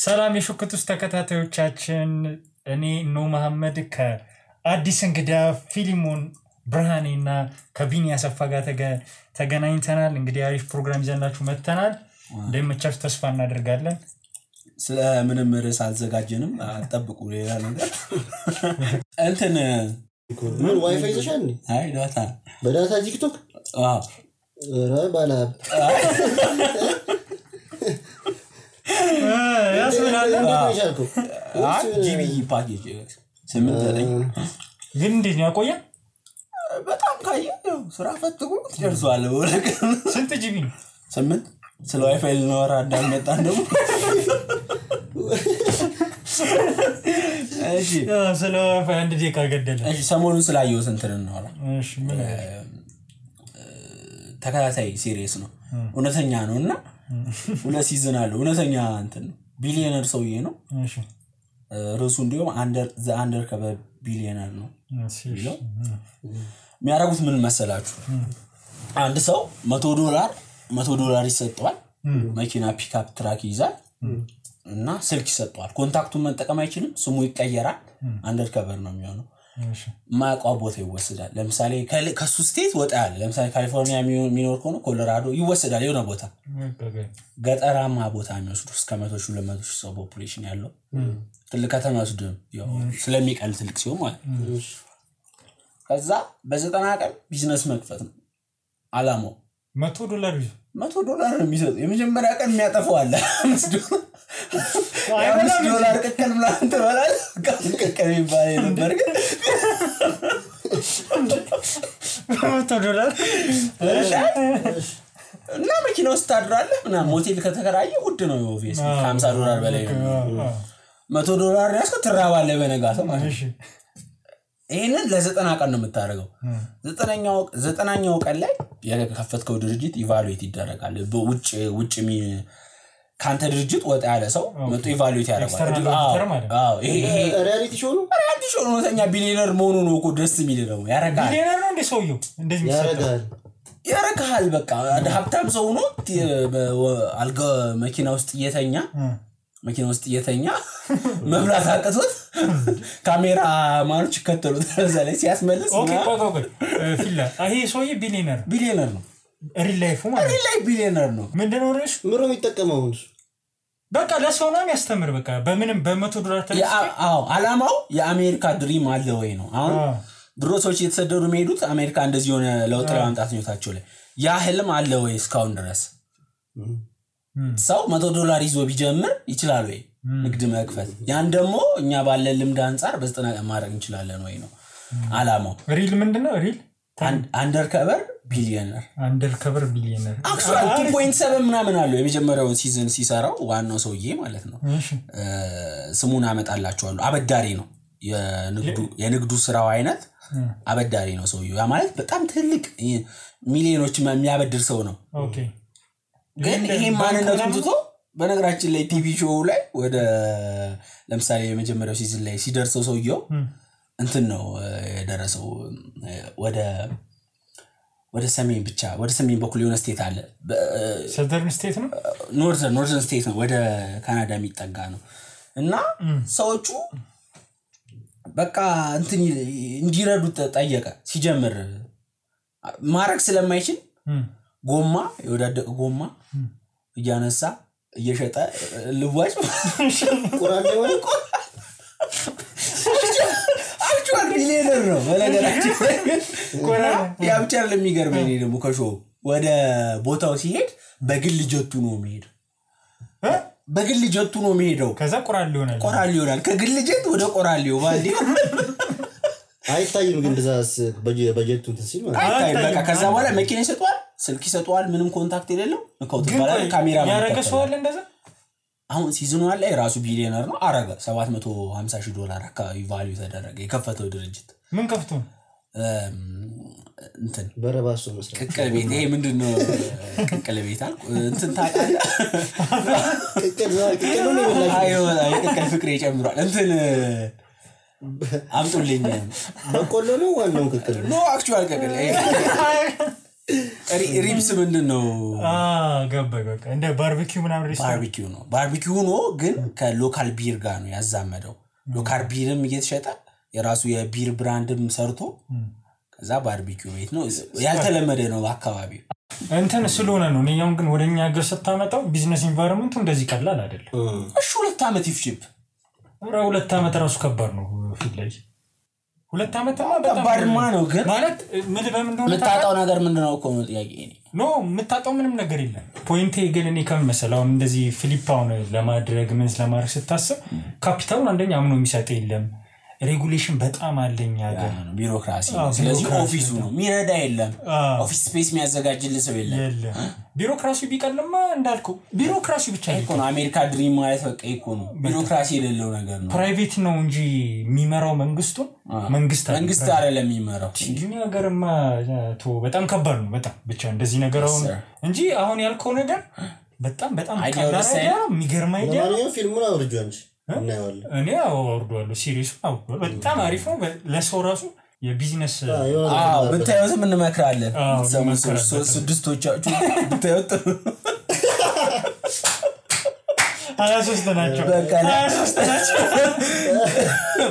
ሰላም የሹክቱስ ተከታታዮቻችን እኔ ኖ መሐመድ ከአዲስ እንግዳ ፊሊሞን ብርሃኔና ከቢኒ ያሰፋ ጋር ተገናኝተናል እንግዲህ አሪፍ ፕሮግራም ይዘንላችሁ መጥተናል እንደምቻችሁ ተስፋ እናደርጋለን ስለ ምንም ርዕስ አልዘጋጀንም አጠብቁ ሌላ ነገር እንትን ምን ዋይፋይ ይዘሻል አይ ዳታ በዳታ ቲክቶክ ባላ ያስብላል ጂቢ ፓኬጅ 8 ግን እንዴት ነው ያቆየ በጣም ካየው ስራ ፈትጉ ደርሷል ወለከ ስንት ጂቢ 8 ስለ ዋይፋይ ነው አዳም መጣን ደግሞ እሺ ስለ ዋይፋይ አንድ ደቂቃ ገደለ እሺ ሰሞኑን ስላየው እንትን ነው አላ እሺ ምን ተከታታይ ሲሪየስ ነው እውነተኛ ነውና ሁለት ሲዝን አለው እውነተኛ እንትን ቢሊየነር ሰውዬ ነው እሺ ርዕሱ እንዲሁም አንደር ከበ ቢሊየነር ነው የሚያረጉት ምን መሰላችሁ አንድ ሰው $100 ይሰጣል መኪና ፒክአፕ ትራክ ይዛል እና ስልክ ይሰጣል ኮንታክቱን መጠቀም አይችልም ስሙ ይቀየራል አንደር ከቨር ነው የሚሆነው እሺ ማቋ ቦታ ይወሰዳል ለምሳሌ ከሱ ስቴት ወጣ ያለ ለምሳሌ ካሊፎርኒያ ሚኖር ከሆነ ኮሎራዶ ይወሰዳል የሆነ ቦታ ገጠራማ ቦታ የሚወስዱ እስከ 100,000 ሰው ፖፑሌሽን ያለው ትልቅ ከተማ ወስዱ ያው ስለሚቀል ትልቅ ሲሆን ማለት ከዛ በ90 ቀን ቢዝነስ መክፈት ነው አላማው $100 $100 ነው የሚሰጥ የመጀመሪያ ቀን የሚያጠፋው አለ $5 ከከል ምናምን ተባላል ከከል ይባላል ነበር ግን $100 እና መኪና ውስጥ ታድራለህ እና ሞቴል ከተከራየ ውድ ነው ኦቪየስ $50 በላይ ነው $100 ያስከ ትራባለህ በነጋታው ማለት ነው ይሄንን ለ90 ቀን ነው የምታደርገው 90ኛው ቀን ላይ የከፈትከው ድርጅት ኢቫሉዌት ይደረጋል በውጭ ካንተ ድርጅት ወጣ ያለ ሰው መጥቶ ኢቫሉዌት ያደርጋል አዎ ይሄ ሪያሊቲ ሾው ነው ተኛ ቢሊየነር መሆኑ ነው እኮ ደስ የሚል ነው ያረጋል ቢሊየነር ነው እንደ ሰውየው እንደዚህ ያረጋል በቃ ሀብታም ሰው ነው አልጋ መኪና ውስጥ እየተኛ መብራት አቀቶት ካሜራ ማኖች ከተሉት ዘላይ ሲያስመልስ ኦኬ ቆቆቆ ፊላ አሄ ሰውዬ ቢሊየነር ነው ሪል ላይፍ ቢሊየነር ነው ምንድነው ርዕሱ ምሮ የሚጠቀመው በቃ ለሰው ነው የሚያስተምር በቃ በምንም $100 ተለስ አዎ አላማው የአሜሪካ ድሪም አለ ወይ ነው አሁን ድሮ ሰዎች የተሰደዱ የሚሄዱት አሜሪካ እንደዚህ ሆነ ለውጥ ለማምጣት ነው ላይ ያ ህልም አለ ወይ እስካሁን ድረስ ሰው $100 ይዞ ቢጀምር ይችላል ወይ ንግድ መክፈት ያን ደግሞ እኛ ባለ ልምድ አንፃር በ90 ቀን ማድረግ እንችላለን ወይ ነው አላማው ሪል ምንድነው ሪል አንደር ከቨር ቢሊየነር አክቹዋሊ 2.7 ምናምን አለው የመጀመሪያውን ሲዝን ሲሰራው ዋናው ሰውዬ ማለት ነው ስሙን አመጣላችኋለሁ አበዳሪ ነው የንግዱ ስራው አይነት አበዳሪ ነው ሰውዬው ያ ማለት በጣም ትልቅ ሚሊዮኖች የሚያበድር ሰው ነው ኦኬ ግን ይሄ ማንነቱን ትቶ በነገራችን ላይ ቲቪ ሾው ላይ ወደ ለምሳሌ የመጀመሪያው ሲዝን ላይ ሲደርሰው ሰውየው እንትን ነው የደረሰው ወደ ሰሜን በኩል የሆነ ስቴት አለ ሰደርን ስቴት ነው ኖርዘርን ስቴት ነው ወደ ካናዳ የሚጠጋ ነው እና ሰዎቹ በቃ እንትን እንዲረዱት ጠየቀ ሲጀምር ማረክ ስለማይችል ጎማ የወዳደቀ ጎማ እያነሳ እየሸጠ ልዋጭ ቁራን ነው አክቹዋሊ ቢሊየነር ነው በነገራችን ያ ብቻ ለሚገርመኝ ደግሞ ከሾው ወደ ቦታው ሲሄድ በግል ጀቱ ነው የሚሄደው ከዛ ቆራል ይሆናል ከግል ጀት ወደ ቆራሊው ባልዲ አይታይም ግን እንደዛስ በጀቱ እንትን ሲል ማለት አይታይ በቃ ከዛ በኋላ መኪና ይሰጣል ስልክ ይሰጣል ምንም ኮንታክት የሌለው እንኳን ተባለ ካሜራ ያረገሰዋል እንደዛ አሁን ሲዝኑ ላይ ራሱ ቢሊየነር ነው አረጋ $750,000 አካባቢ ቫልዩ ተደረገ የከፈተው ድርጅት ምን ከፍቶ እንትን በረባሶ መስራት ቅቅል ቤት ይሄ ምንድነው ቅቅል ቤት አልኩ እንትን ታውቃለህ ቅቅል ነው ይበላል ቅቅል ፍቅሬ ጨምሯል እንትን አምጡልኝ በቆሎ ነው ዋናው ቅቅል ነው አክቹዋል ቅቅል ሪብስ ምንድነው ገባኝ በቃ እንደ ባርቢኪው ምናምን ሬስቶራንት ባርቢኪው ነው ግን ከሎካል ቢር ጋር ነው ያዛመደው ሎካል ቢርም እየተሸጠ የራሱ የቢር ብራንድም ሰርቶ ከዛ ባርቢኪው ቤት ነው ያልተለመደ ነው አካባቢ እንትን ስለሆነ ነው እኛም ግን ወደኛ ሀገር ስታመጣው ቢዝነስ ኢንቫይሮንመንቱ እንደዚህ ቀላል አይደለም እሺ 2 አመት ይፍጅብ 2 አመት ራሱ ከባድ ነው ፊት ላይ 2 አመት ከባድማ ነው ግን ማለት ምን በምንድነው የምታጣው ነገር ምንድነው እኮ ነው ጥያቄ ኖ የምታጣው ምንም ነገር የለም ፖይንቴ ግን እኔ ከመሰለው እንደዚህ ፊሊፓውን ለማድረግ ምን ለማድረግ ስታስብ ካፒታሉን አንደኛ አምኖ የሚሰጥ የለም ሬጉሌሽን በጣም አለኛ ጋር ቢሮክራሲ ስለዚህ ኦፊሱ ነው ሚረዳ የለም ኦፊስ ስፔስ የሚያዘጋጅልህ ሰው የለም ቢሮክራሲ ቢቀልማ እንዳልከው ቢሮክራሲ ብቻ ይቆ ነው አሜሪካ ድሪም ማለት በቃ ይቆ ነው ቢሮክራሲ የሌለው ነገር ነው ፕራይቬት ነው እንጂ የሚመራው መንግስት አይደለም የሚመራው እንጂ ነገርማ በጣም ከባድ ነው በጣም ብቻ እንደዚህ ነገር አሁን እንጂ አሁን ያልከው ነገር በጣም ቀላል አይደለም የሚገርም አይደለም ለማንኛውም ፊልሙን አውርጆ እንጂ እኔ አወርደዋለሁ ሲሪየስ አውርደዋለሁ በጣም አሪፍ ነው ለሰው ራሱ የቢዝነስ ብታዩት ምን መክራለን ስድስቶቻችሁ ብታዩት 23 ናቸው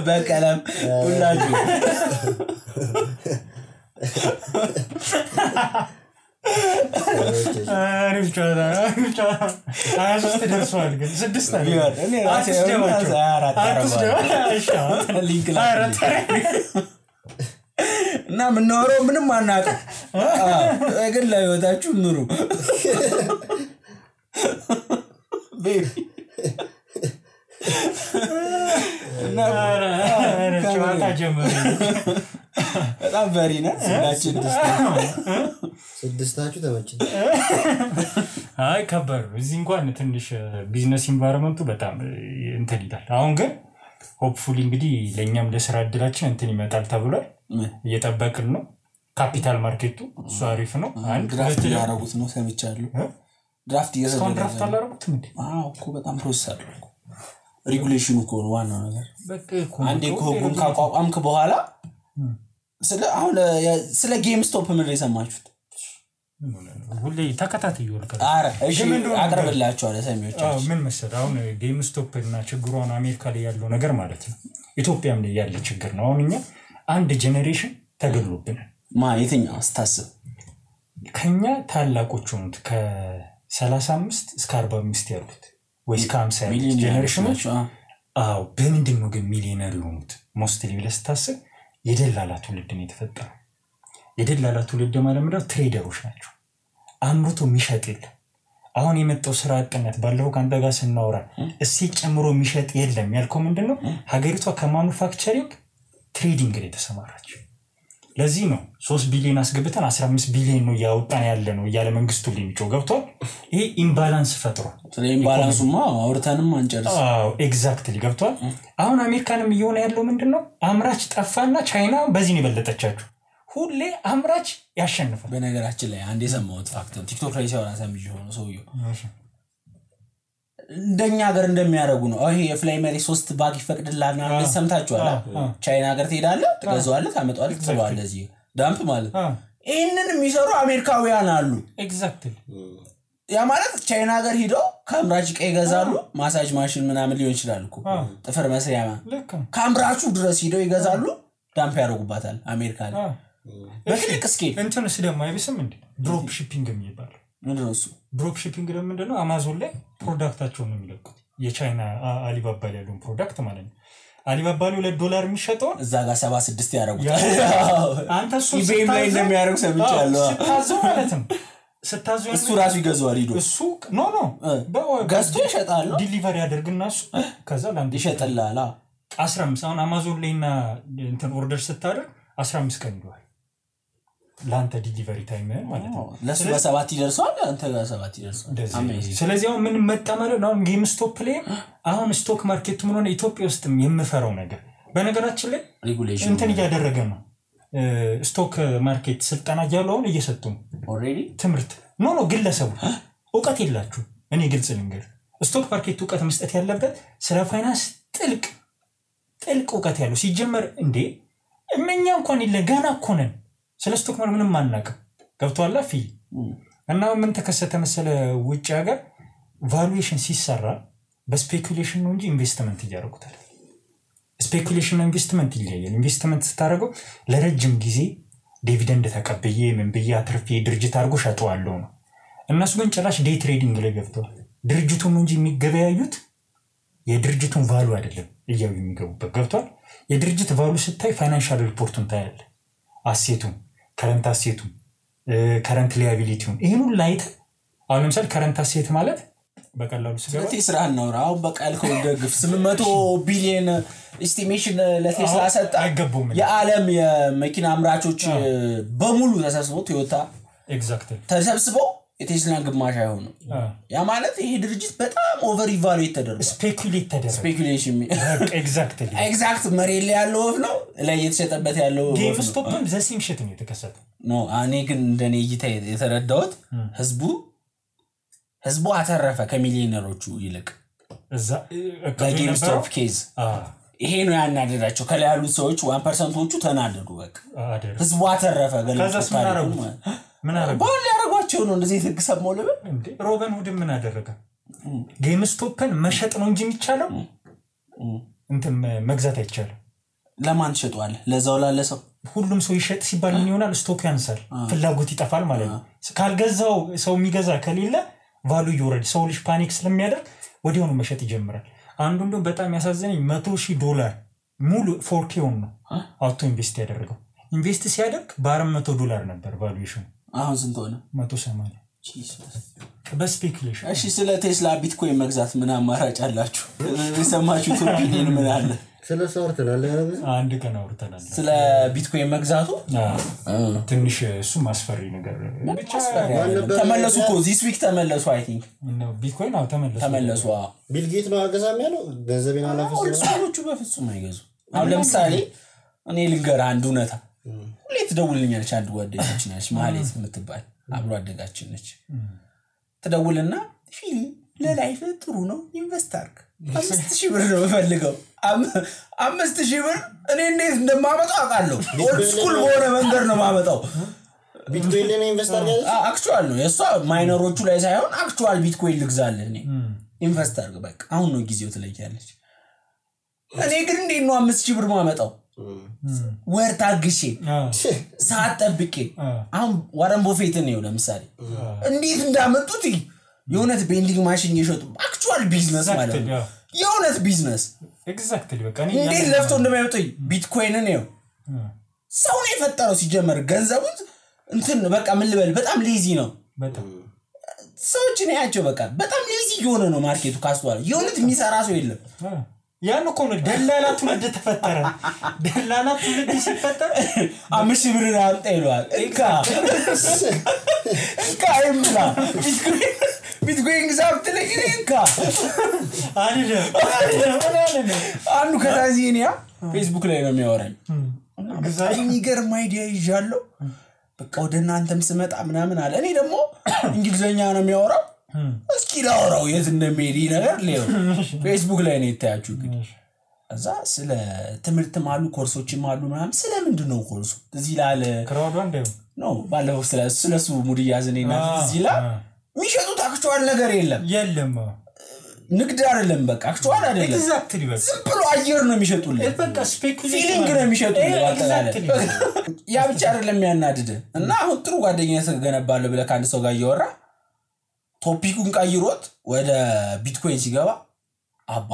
በቀለም ሁላችሁ አሪፍ ጨዋታ 23 ደርሷል ግን 6 አለ እኔ ራሴ ሊንክ እና ምንኖረው ምንም አናውቅም ግን ለህይወታችሁ ኑሩ ቤቢ እና ጨዋታ ጀመረ በጣም በሪና ስድስታችሁ ተመችቶ አይ ከበር እዚህ እንኳን ትንሽ ቢዝነስ ኢንቫይሮንመንቱ በጣም እንትን ይላል አሁን ግን ሆፕፉሊ እንግዲህ ለኛም ለስራ እድላችን እንትን ይመጣል ተብሏል እየተጠበቅን ነው ካፒታል ማርኬቱ እሱ አሪፍ ነው አንድ ድራፍት ያረጉት ነው ሰምቻለሁ ድራፍት አላረጉት እንዴ እኮ በጣም ፕሮሰስ አለው ሬጉሌሽኑ እኮ ነው ዋናው ነገር በቃ አንዴ ኮጉን ካቋቋምክ በኋላ ስለ ጌም ስቶፕ ምን የሰማችሁት ሁሌ ተከታታይ ይወልቀ አረ እሺ አቀርብላችሁ አለ ሰሚዎቻችሁ ምን መሰለህ አሁን ጌም ስቶፕ እና ችግሩን አሜሪካ ላይ ያለው ነገር ማለት ነው ኢትዮጵያም ላይ ያለ ችግር ነው አሁንኛ አንድ ጄኔሬሽን ተገሎብናል የትኛው አስተሳሰብ ከኛ ታላቆቹ ነው ከ35 እስከ 45 ያሉት ወይስ ከ50 ያሉት ጄኔሬሽኖች በምንድነው ግን ሚሊዮነር የሆኑት ሞስትሊ ለስታስብ የደላላ ትውልድ ነው የተፈጠረው የደላላ ትውልድ ማለት ምንድነው ትሬደሮች ናቸው አምርቶ የሚሸጥ የለም አሁን የመጣው ስራ አጥነት ባለው ካንተ ጋር ስናወራ እሲ ጨምሮ የሚሸጥ የለም ያልከው ምንድነው ሀገሪቷ ከማኑፋክቸሪንግ ትሬዲንግ ላይ ተሰማራች ለዚህ ነው 3 ቢሊዮን አስገብተን 15 ቢሊዮን ነው ያወጣን ያለ ነው ያለ መንግስቱ ሊሚጮ ገብቷል ይሄ ኢምባላንስ ፈጥሯል ኢምባላንሱማ አውርተንም አንጨርስ ኤግዛክትሊ ገብቷል አሁን አሜሪካንም እየሆነ ያለው ምንድነው አምራች ጠፋና ቻይና በዚህ ነው በለጠቻችሁ ሁሌ አምራች ያሸንፋል በነገራችን ላይ አንዴ ሰማሁት ፋክት ቲክቶክ ላይ ሲያወራ ሰምጄ ሆኖ ሰውየው እንደኛ ሀገር እንደሚያደርጉ ነው ይሄ የፍላይ መሪ 3 ባግ ይፈቅድላልና ሰምታችኋል ቻይና ሀገር ትሄዳለህ ትገዛዋለህ ታመጣዋለህ ትጥለዋለህ እዚህ ዳምፕ ማለት ይሄንን የሚሰሩ አሜሪካውያን አሉ ኤግዛክትሊ ያ ማለት ቻይና ሀገር ሄደው ካምራች ቀይ ይገዛሉ ማሳጅ ማሽን ምናምን ሊሆን ይችላል እኮ ጥፍር መስሪያ ካምራቹ ድረስ ሄደው ይገዛሉ ዳምፕ ያደርጉባታል አሜሪካ ላይ በትልቅ ስኬል እንትንስ ደግሞ አይብስም እንዴ ድሮፕ ሺፒንግ የሚባል ምንድነው እሱ ድሮፕ ሺፒንግ ደግሞ ምንድነው አማዞን ላይ ፕሮዳክታቸውን ነው የሚለቁት የቻይና አሊባባ ላይ ያለው ፕሮዳክት ማለት ነው አሊባባ ላይ $2 የሚሸጠው እዛ ጋር 76 ያደርጉታል አንተ እሱ ኢቤይ ላይ እንደሚያደርጉ ሰምቻለሁ ስታዘው ማለት ነው ስታዘው እሱ ራሱ ይገዛዋል ሄዶ እሱ ኖ ገዝቶ ይሸጣል ዲሊቨሪ ያደርግና እሱ ከዛ ላንተ ይሸጥልሃል 15 አሁን አማዞን ላይና እንትን ኦርደር ስታደርግ 15 ቀን ይሏል ላንተ ዲሊቨሪ ታይም ማለት ነው ለሱ በ7 ይደርሳል አንተ ጋር 7 ይደርሳል ስለዚህ አሁን ምን መጣ ማለት ነው ጌም ስቶፕ ላይ አሁን ስቶክ ማርኬት ምን ሆነ ኢትዮጵያ ውስጥም የምፈራው ነገር በነገራችን ላይ ሬጉሌሽን እንትን እያደረገ ነው ስቶክ ማርኬት ስልጣና ያለውን እየሰጡ ነው ኦሬዲ ትምርት ኖ ግለሰቡ ዕውቀት የላችሁ እኔ ግልጽ ልንገር ስቶክ ማርኬት ዕውቀት መስጠት ያለበት ስለ ፋይናንስ ጥልቅ ዕውቀት ያለው ሲጀመር እንዴ እኛ እንኳን ገና እኮ ነን ስለ ስቶክ ማርኬት ምንም አናውቅም ገብቷል ፊል እና ምን ተከሰተ መሰለ ውጭ ሀገር ቫሉዌሽን ሲሰራ በስፔኩሌሽን ነው እንጂ ኢንቨስትመንት እያደረጉታል ስፔኩሌሽን እና ኢንቨስትመንት ይለያያል ኢንቨስትመንት ስታደርገው ለረጅም ጊዜ ዲቪደንድ ተቀበየ ምን በያ አትርፌ ድርጅት አድርጎ ሸጠዋለሁ ነው እነሱ ግን ጭራሽ ዴይ ትሬዲንግ ላይ ገብተዋል ድርጅቱን እንጂ የሚገበያዩት የድርጅቱን ቫሉ አይደለም እያዩ የሚገቡበት ገብቷል የድርጅት ቫሉ ስታይ ፋይናንሻል ሪፖርቱን ታያለ አሴቱን ከረንት አሴቱን ከረንት ሊያቢሊቲውን ይሄን ሁሉ አይተ አሁን ለምሳሌ ከረንት አሴት ማለት በቀላሉ ስለዚህ ቴስላ ነው አሁን በቃልከው ደግፍ 800 ቢሊዮን ኤስቲሜሽን ለቴስላ ሰጣ አይገቡም የዓለም የመኪና አምራቾች በሙሉ ተሰብስበው ቶዮታ ኤግዛክትሊ ተሰብስበው የቴስላን ግማሽ አይሆኑ ያ ማለት ይሄ ድርጅት በጣም ኦቨር ኢቫሉዌት ተደርጓል ስፔኩሌሽን ኤግዛክት መሬት ላይ ያለው ነው ላይ የተሸጠበት ያለው ጌምስቶፕም ዘሲም ሽት ነው የተከሰተው ኖ እኔ ግን እንደኔ እይታ የተረዳሁት ህዝቡ አተረፈ ከሚሊዮነሮቹ ይልቅ እዛ በጌምስቶፕ ኬዝ ይሄ ነው ያናደዳቸው ከላይ ያሉት ሰዎች 1%ዎቹ ተናደዱ በቃ ህዝቡ አተረፈ ከዛስ ምን አረጉ ባል ያረጋቸው ነው እንደዚህ ተግሰማው ለበ እንዴ ሮበን ሁድ ምን አደረገ ጌምስቶፕን መሸጥ ነው እንጂ የሚቻለው እንትን መግዛት አይቻልም ለማን ሸጧል ለዛው ላለሰው ሁሉም ሰው ይሸጥ ሲባል ምን ይሆናል ስቶክ ያንሳል ፍላጎት ይጠፋል ማለት ነው ካልገዛው ሰው የሚገዛ ከሌለ ቫሉ ይወርድ ሰው ልጅ ፓኒክ ስለሚያደርግ ወዲያው ነው መሸጥ ይጀምራል አንዱ እንደው በጣም ያሳዘነኝ $100,000 ሙሉ 4K ነው አውቶ ኢንቨስት ያደረገው ኢንቨስት ሲያደርግ $400 ነበር ቫሉዌሽኑ አሁን ስንት ሆነ 180 ጂሰስ በስፔኩሌሽን እሺ ስለ ቴስላ ቢትኮይን መግዛት ምን አማራጭ አላችሁ የሰማችሁት ኦፒኒየን ምን አለ ስለ ሶርተናል አንድ ቀን አውርተናል ስለ ቢትኮይን መግዛቱ ትንሽ እሱ ማስፈሪ ነገር ብቻ ተመለሱ እኮ this week ተመለሱ I think ነው ቢትኮይን አው ተመለሱ ቢል ጌት ነው አገዛም ያለው ገንዘቤን አላፈሰው ሰዎቹ በፍጹም አይገዙ አሁን ለምሳሌ እኔ ልንገር አንድ እውነታ ሁሌ ትደውልልኛለች አንድ ጓደኛችን ነች ማለት የምትባል አብሮ አደጋችን ነች ትደውልና ፊል ለላይፍ ጥሩ ነው ኢንቨስት አድርግ 5000 ብር ነው ፈልገው 5000 ብር እኔ እንዴት እንደማመጣው አውቃለሁ ኦልድ ስኩል በሆነ መንገድ ነው ማመጣው ቢትኮይን ላይ ኢንቨስት አድርግ አክቹዋል ነው የሷ ማይነሮቹ ላይ ሳይሆን አክቹዋል ቢትኮይን ልግዛልህ እኔ ኢንቨስት አድርግ በቃ አሁን ነው ጊዜው ትለያለች እኔ ግን እንዴት ነው 5000 ብር ማመጣው ወር ታግሼ ሰዓት ጠብቄ አሁን ዋረን ቦፌት ነው ለምሳሌ እንዴት እንዳመጡት የሆነት ቤንዲንግ ማሽን እየሸጡ አክቹዋል ቢዝነስ ማለት ነው የሆነት ቢዝነስ ኤግዛክትሊ በቃ እንዴት ለፍቶ እንደማይወጣ ቢትኮይንን ነው ሰው ነው የፈጠረው ሲጀመር ገንዘቡን እንትን በቃ ምን ልበል በጣም ሌዚ ነው በጣም ሰዎች ነው ያቸው በቃ በጣም ሌዚ የሆነ ነው ማርኬቱ ካስተዋል የሆነት የሚሰራ ሰው የለም ያን እኮ ነው ደላላ ትውልድ ተፈጠረ ደላላ ትውልድ ሲፈጠር 5000 ብር አምጣ ይሏል እንካ ይምላ ቢትኮይን ግዛት ለግሪንካ አይደለም አንዱ ከታዚኒያ ፌስቡክ ላይ ነው የሚያወራኝ ግዛት የሚገርም አይዲያ ይዣለሁ በቃ ወደ እናንተም ስመጣ ምናምን አለ እኔ ደግሞ እንግሊዘኛ ነው የሚያወራው እስኪ ላውራው የት እንደሚሄድ ነገር ሌው ፌስቡክ ላይ ነው የታያችሁ ግን እዛ ስለ ትምህርት ማሉ ኮርሶች ማሉ ምናምን ስለምንድነው ኮርሱ እዚህ ላለ ክራውድ አንዴው ነው ባለው ስለሱ ሙድ ያዘኔና እዚህ ላ ሚሸጡት አክቹዋል ነገር የለም ንግድ አይደለም በቃ አክቹዋል አይደለም ኤግዛክትሊ በቃ ዝም ብሎ አየር ነው የሚሸጡልህ በቃ ስፔኩሌሽን ፊሊንግ ነው የሚሸጡልህ ያ ብቻ አይደለም ያናድደ እና አሁን ጥሩ ጓደኛዬ ተገነባለ ብለ ካንድ ሰው ጋር እያወራ ቶፒኩን ቀይሮት ወደ ቢትኮይን ሲገባ አባ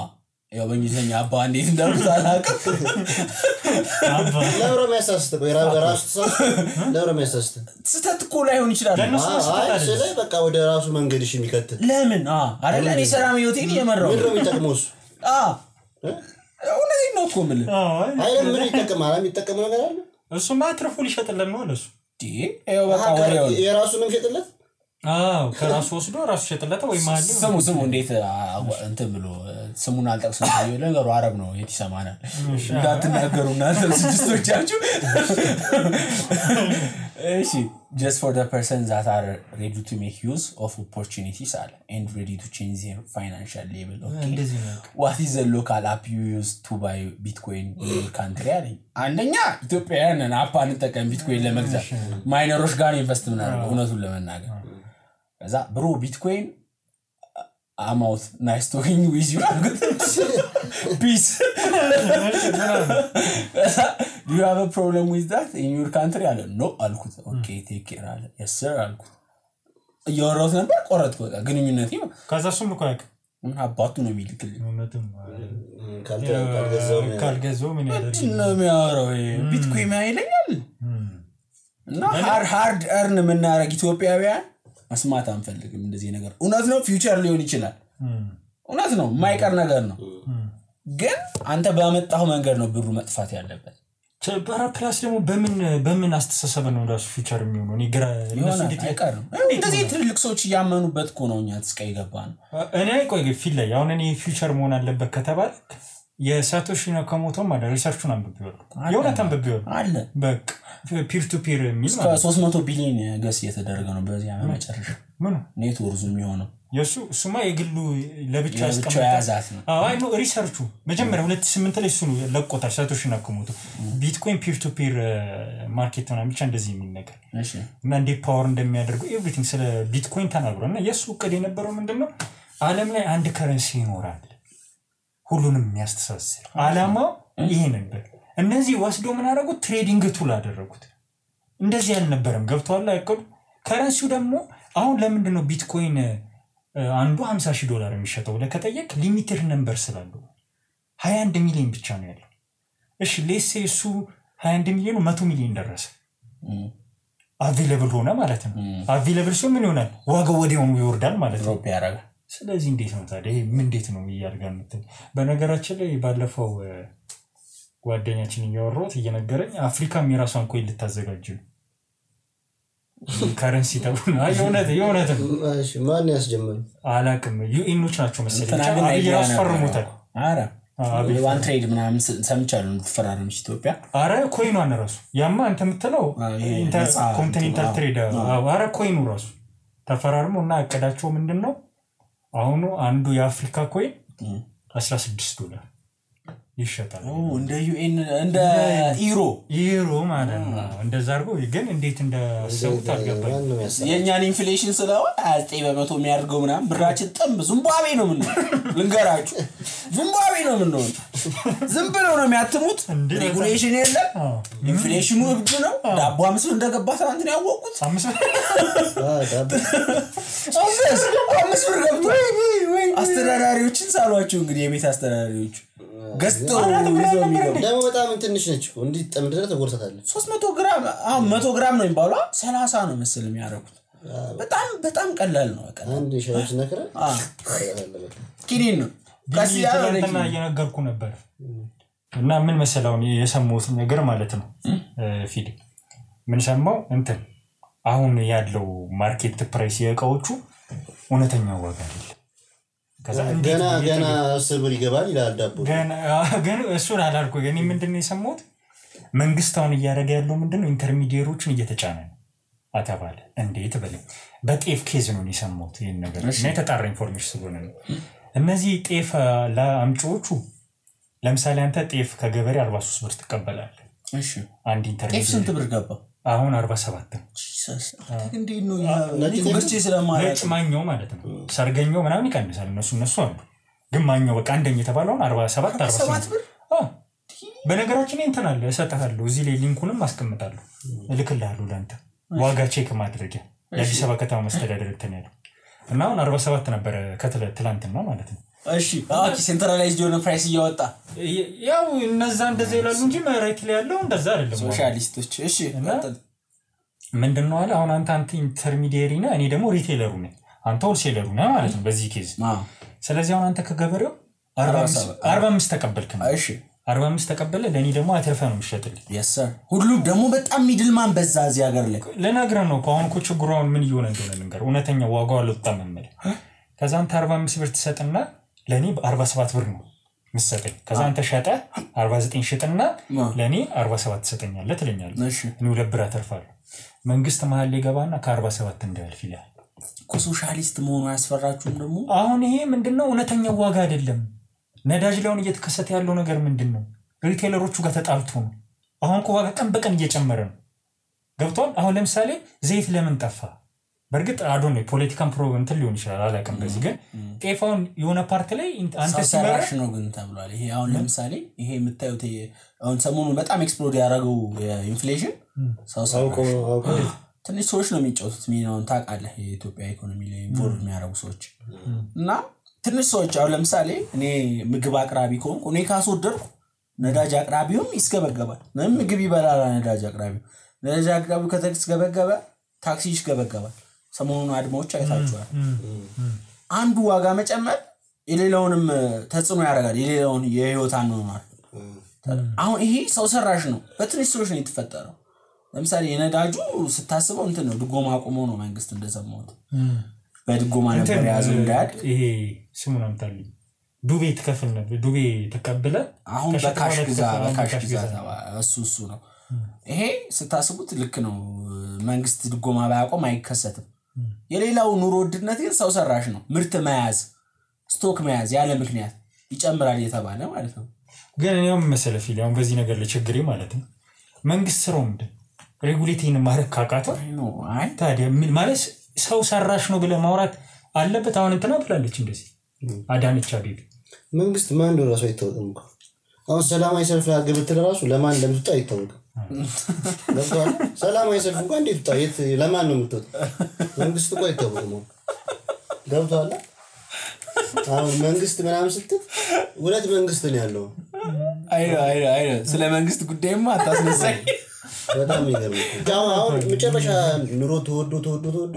ያው በእንግሊዘኛ አባ እንዴት እንደርሱ አላውቅም ለሮሜሳስት ስተት እኮ ላይሆን ይችላል አይ በቃ ወደ ራሱ መንገድሽ የሚከተል ለምን አይደለ እኔ ሰላም ህይወቴን እየመራው ምንድነው የሚጠቅመውስ እውነቴን ነው እኮ ምን አይደለም ምን ይጠቅማል የሚጠቅመው ነገር አለ እሱማ ትርፉ ሊሸጥልን ነው ለሱ ይሄው በቃ ወሬው የራሱንም ሸጥለት ከራሱ ወስዶ ራሱ ሸጥለታ ወይ ማለ ስሙ እንዴት እንትን ብሎ ስሙን አልጠቅስም ታየው ነገሩ አረብ ነው የት ይሰማናል እንዳትናገሩና ስድስቶቻችሁ እሺ just for the persons that are ready to make use of opportunities and ready to change their financial level okay what is the local app you use to buy bitcoin in your country አንደኛ ኢትዮጵያውያን አፕ አንጠቀም ቢትኮይን ለመግዛት ማይነሮች ጋር ኢንቨስት ምናምን እውነቱን ለመናገር ከዛ ብሮ ቢትኮይን I'm out nice talking with you peace do you have a problem with that in your country አለ no አልኩት okay take care አለ yes sir አልኩት እያወራሁት ነበር ቆረጥኩ በቃ ግንኙነት ነው ከዛ እሱም ልኮ ያውቅ ምን አባቱ ነው የሚልክልኝ እውነትም ካልገዛው ምን ያደርግ ነው የሚያወራው ቢትኮይን አይለኛል እና hard earn የምናረግ ኢትዮጵያውያን መስማት አንፈልግም እንደዚህ ነገር እውነት ነው ፊውቸር ሊሆን ይችላል እውነት ነው ማይቀር ነገር ነው ግን አንተ ባመጣው መንገድ ነው ብሩ መጥፋት ያለበት ቸባራ ፕላስ ደግሞ በምን አስተሳሰብ ነው ራሱ ፊውቸር የሚሆነው እኔ ግራ እነሱ እንዴት አይቀርም እንደዚህ ትልልቅ ሰዎች ያመኑበት እኮ ነው እኛ ተስቀይ ገባን እኔ ቆይ ፊል ላይ አሁን እኔ ፊውቸር መሆን አለበት ከተባለ የሳቶሺ ናካሞቶ ማለት ሪሰርቹን አንብቤው የሆነታን አንብቤው አለ በቃ ፒር ቱ ፒር የሚል እስከ 300 ቢሊዮን ገስ እየተደረገ ነው በዚህ ዓመት መጨረሻ ምን ኔትወርክ የሚሆነው የሱማ የግሉ ለብቻ ያስቀምጣት አይ ነው ሪሰርቹ መጀመሪያ 2008 ላይ እሱ ነው ለቆታል ሳቶሺ ናካሞቶ ቢትኮይን ፒር ቱ ፒር ማርኬት ነው ብቻ እንደዚህ የሚል ነገር እሺ እና እንደ ፓወር እንደሚያደርገው ኤቭሪቲንግ ስለ ቢትኮይን ተናግሮና የሱ እቅድ የነበረው ምንድነው ዓለም ላይ አንድ ከረንሲ ይኖራል ሁሉንም የሚያስተሳስር አላማው ይሄ ነበር እነዚህ ወስዶ ምን አደረጉት ትሬዲንግ ቱል አደረጉት እንደዚህ ያልነበረም ገብቷል አይቀዱ ከረንሲው ደግሞ አሁን ለምንድን ነው ቢትኮይን አንዱ $50,000 የሚሸጠው ለከጠየቅ ሊሚትድ ነምበር ስላለው 21 ሚሊዮን ብቻ ነው ያለው እሺ ሌስ እሱ 21 ሚሊዮን 100 ሚሊዮን ደረሰ አቬሌብል ሆነ ማለት ነው አቬሌብል ሲሆን ምን ይሆናል ዋጋው ወዲያውኑ ይወርዳል ማለት ነው ያረጋል ስለዚህ እንዴት ነው ታዲያ ይሄ ምን እንዴት ነው ይያርጋል ማለት በነገራችን ላይ ባለፈው ጓደኛችን እያወራሁት እየነገረኝ አፍሪካም የራሷን ኮይን ልታዘጋጅ ነው ከረንሲ ተብሎ የሆነት እሺ ማን ያስጀመረው አላቅም ዩኤኖች ናቸው መሰለኝ አብይራስ ፈርሞታል አረ ዋን ትሬድ ምናምን ሰምቻለሁ ተፈራረምሽ ኢትዮጵያ አረ ኮይኗን ራሱ ያማ አንተ የምትለው ኢንተርኮንቲኔንታል ትሬድ አረ ኮይኑ ራሱ ተፈራርሞና አቀዳቸው ምንድነው አሁን አንዱ የአፍሪካ ኮይን $16 ይሸጣል እንደ ዩኤን እንደ ኢሮ ማለት ነው እንደዛ አርጎ ግን እንዴት እንደሰውት አልገባኝ የኛን ኢንፍሌሽን ስላው 9% የሚያርገው ምናምን ብራችን ጥምብ ዚምባብዌ ነው ምን ልንገራችሁ ዚምባብዌ ነው ምን ነው ዝም ብለው ነው የሚያትሙት ሬጉሌሽን የለም ኢንፍሌሽኑ እብድ ነው ዳቦ 5 እንደገባ ታንት ነው ያወቁት 5 ብር ገብቶ አስተዳዳሪዎችን ሳሏቸው እንግዲህ የቤት አስተዳዳሪዎች ገስቶ ይዘው የሚገቡ ደግሞ በጣም ትንሽ ነች እንዴ ጠምድረ ተጎርታታለች 300 ግራም አሁን 100 ግራም ነው የሚባለው 30 ነው መስል የሚያረኩት በጣም ቀላል ነው በቃ አንድ ሻሽ ነከረ ኪኒን ነው ከሲያለና እየነገርኩ ነበር እና ምን መሰለው የሰሙት ነገር ማለት ነው ፊድ ምን ሰማው እንትን አሁን ያለው ማርኬት ፕራይስ የእቃዎቹ እውነተኛው ዋጋ አይደለም ከዛ ገና ስብር ይገባል ይላል ዳቦ ገና እሱን አላልኩ ግን ምንድነው የሰሙት መንግስታውን እያደረገ ያለው ምንድነው ኢንተርሚዲየሮችን እየተጫነ ነው አተባለ እንዴት በለኝ በጤፍ ኬዝ ነው የሰሙት ይሄን ነገር እና የተጣራ ኢንፎርሜሽን ስለሆነ ነው እነዚህ ጤፍ ለአምጪዎቹ ለምሳሌ አንተ ጤፍ ከገበሬ 43 ብር ትቀበላለህ እሺ አንድ ኢንተርሚዲየር ጤፍ ስንት ብር ገባ አሁን 47 ነው እንዴት ነው ለዲኮርቼ ስለማለት ማኛው ማለት ነው ሰርገኛው ምናምን ይቀንሳል እነሱ አሉ ግን ማኛው በቃ አንደኛ የተባለው 47 ብር በነገራችን እንትን አለ እሰጣለሁ እዚህ ላይ ሊንኩንም አስቀምጣለሁ እልክልሃለሁ ለአንተ ዋጋ ቼክ ማድረጊያ የአዲስ አበባ ከተማ መስተዳድር እንትን ያለው እና አሁን 47 ነበር ከትላንትና ማለት ነው እሺ ሴንትራላይዝድ የሆነ ፕራይስ እያወጣ ያው እነዛ እንደዛ ይላሉ እንጂ መሬት ላይ ያለው እንደዛ አይደለም ሶሻሊስቶች እሺ ምንድነው አለ አሁን አንተ ኢንተርሚዲየሪ ነህ እኔ ደግሞ ሪቴለሩ ነኝ አንተ ሆልሴለሩ ነህ ማለት ነው በዚህ ኬዝ ስለዚህ አሁን አንተ ከገበሬው 45 ተቀበልክ ነው እሺ 45 ተቀበለ ለኔ ደግሞ አትርፈ ነው የሚሸጥልኝ yes sir ሁሉም ደግሞ በጣም ሚድልማን በዛ እዚህ ሀገር ላይ ለናግራ ነው አሁን እኮ ችግሩን ምን ይሆነ እንደሆነ ልንገር እውነተኛ ዋጋው አልወጣም ማለት ከዛን 45 ብር ተሰጥና ለኔ በ47 ብር ነው መስጠኝ ከዛን ተሸጠ 49 ሽጥና ለኔ 47 ተሰጠኛለ ትለኛለህ ነው ለብራ ተርፋለሁ መንግስት መሃል ሊገባና ከ47 እንዳልፍ ይላል ኮሶሻሊስት መሆኑ ያስፈራችሁም ደግሞ አሁን ይሄ ምንድነው እውነተኛ ዋጋ አይደለም ነዳጅ ላውን እየተከሰተ ያለው ነገር ምንድነው ሪቴለሮቹ ጋር ተጣልቶ ነው አሁን ኮ ዋጋ ቀን በቀን እየጨመረ ነው ገብቷል አሁን ለምሳሌ ዘይት ለምን ጠፋ በርግጥ አዶን ነው ፖለቲካን ፕሮግራም ሊሆን ይችላል አላቀም በዚህ ግን ጤፋውን የሆነ ፓርት ላይ አንተ ሲመረሽ ነው ግን ተብሏል ይሄ አሁን ለምሳሌ ይሄ የምታዩት አሁን ሰሞኑን በጣም ኤክስፕሎድ ያደረገው ኢንፍሌሽን ሳውቆ ትንሽ ሰዎች ነው የሚጫወቱት ሚናውን ታውቃለህ የኢትዮጵያ ኢኮኖሚ ላይ ኢንቮልቭ የሚያደርጉ ሰዎች እና ትንሽ ሰዎች አሁን ለምሳሌ እኔ ምግብ አቅራቢ ከሆንኩ እኔ ካስወደድኩ ነዳጅ አቅራቢውም ይስገበገባል ምግብ ይበላል ነዳጅ አቅራቢው ከተስገበገበ ታክሲ ይስገበገባል ሰሞኑን አድማዎች አይታችኋል አንዱ ዋጋ መጨመር የሌላውንም ተጽዕኖ ያደርጋል የሌላውን የህይወት አኗኗር አሁን ይሄ ሰው ሰራሽ ነው በትንሽ ሰዎች ነው የተፈጠረው ለምሳሌ የነዳጁ ስታስበው እንትን ነው ድጎማ አቁሞ ነው መንግስት እንደሰማሁት በድጎማ ነበር ያዘው እንዳድ ይሄ ስሙን አምጣልኝ ዱቤ ተከፍል ነበር ዱቤ ተቀበለ አሁን በካሽ ግዛ እሱ ነው ይሄ ስታስቡት ልክ ነው መንግስት ድጎማ ባያቆም አይከሰትም የሌላው ኑሮ ውድነት ግን ሰው ሰራሽ ነው ምርት መያዝ ስቶክ መያዝ ያለ ምክንያት ይጨምራል የተባለ ማለት ነው ግን እኔም መሰለፍ ይላል በዚህ ነገር ለችግሬ ማለት ነው መንግስት ስራው ምንድን ሬጉሌቲንግ ማረክ ካቃተው አይ ታዲያ ምን ማለት ሰው ሰራሽ ነው ብለ ማውራት አለበት አሁን እንትና ብላለች እንደዚህ አዳነች አቤቤ መንግስት ማን ነው ራሱ አይተውም አሁን ሰላማዊ ሰልፍ ያገብት ለራሱ ለማን እንደምትጣ አይተውም ለምን ሰላማዊ ሰልፍ እንኳን እንዴት ታየት ለማን ነው የምትወጣ መንግስት እኮ አይተውም ገብቷል አሁን መንግስት ምናምን ስትል ሁለት መንግስት ነው ያለው አይ ስለ መንግስት ጉዳይማ አታስነሳኝ በጣም ይገርማል አሁን መጨረሻ ኑሮ ተወዶ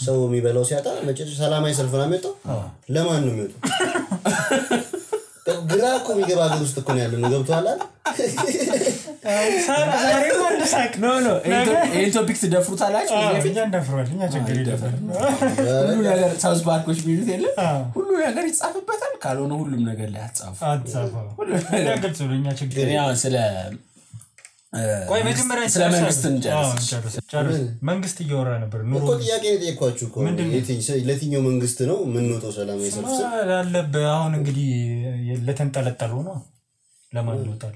ሰው የሚበላው ሲያጣ መጨረሻ ሰላማዊ ሰልፍ ነው የሚወጣው ለማን ነው የሚወጣው ግራኮ የሚገባ ሀገር ውስጥ እኮ ነው ያለው ገብቷል ዛሬ ወንደሳክ ነው ይሄ ቶፒክ ትደፍሩታላችሁ እኛ እንደፍሯልኛ ችግር ይደፈር ሁሉ ነገር ሳውዝ ባንኮች ቢሉት የለ ሁሉ ነገር ይጻፍበታል ካልሆነ ሁሉም ነገር ላይ አጻፉ ሁሉ ነገር ስለኛ ችግር ያው ስለ ቆይ መጀመሪያ ስለ መንግስት እንጨርስ መንግስት እየወራ ነበር ኑሮ እኮ ጥያቄ ነው ጠይቋችሁ እኮ ለትኛው መንግስት ነው ምን ነው ሰላማዊ ሰልፍ አለበ አሁን እንግዲህ ለተንጠለጠሉ ነው ለማን ይወጣል